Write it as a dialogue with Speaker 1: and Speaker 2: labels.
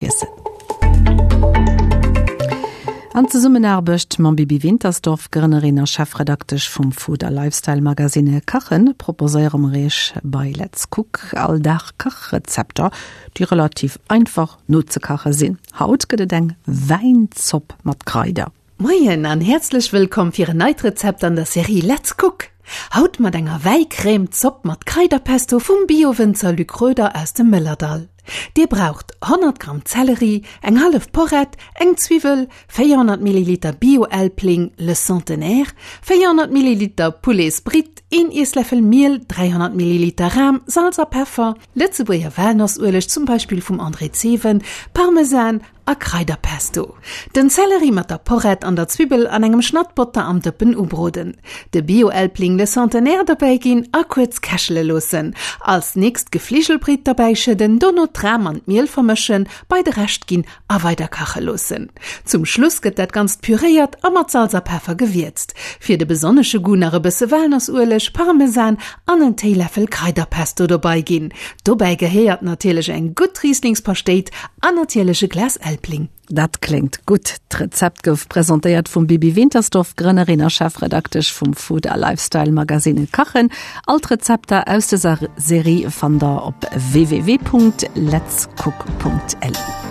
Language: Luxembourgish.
Speaker 1: Iessen. An Zesummenaarbecht mam Bibi Wintersdorf, Grënnerin a Chefredaktesch vum Food a Lifestyle Magazine Kachen, proposéiere mer Iech bei Let's Cook all Dag Kachrezepter, déi relativ einfach nozekache sinn. Haut gëtt et eng Wäinzopp mat Kraider.
Speaker 2: Moien an häerzlech wëllkomm fir en neit Rezept an der Serie Let's Cook! Haut mat enger Wäicrème Zopp mat Kraiderpesto vum Bio-Wënzer Luc Roeder aus dem Mëllerdall. Dir braucht 100 Gramm Zelleri, eng hallef Porrett, eng Zwiwwel, 400 Milliliter Bio-Elbling Le Centenaire, 400 Milliliter Pouletsbritt, een Iessläffel Miel, 300 Milliliter Ram, Salz a Peffer, Lëtzebuerger Walnossueleg, zum Beispill vum André Zewen, Parmesan a Kraiderpesto. Den Zelleri mat der Porrett an der Zwibbel an engem Schnatt Botter am Dëppen ubroden. De Bio-Elbling Le Centenaire dobäi ginn a kuerz kächele loossen. Als nächst d'Gefligelbritt derbäi schëdden, dono d'Ram an d'Miel vermëschen, bei de Rescht ginn a weider kache loossen. Zum Schluss gëtt dat Ganzt püréiert a mat Salz a Peffer gewierzt. Fir de besonnesche Goût nach e bësse Walnossueleg, Parmesan an en Téiläffel Kraiderpesto dobei ginn. Dobäi gehéiert natierlech eng gutt Rieslingspaschtéit an natierlech e Glas Elbling.
Speaker 1: Dat kléngt gutt! D'Rezept gouf presentéiert vum Bibi Wintersdorf, Grënnerin a Chefredaktesch vum Food a Lifestyle Magazine Kachen. All d'Rezepter aus dëser Serie fannt der op www.letscook.lu.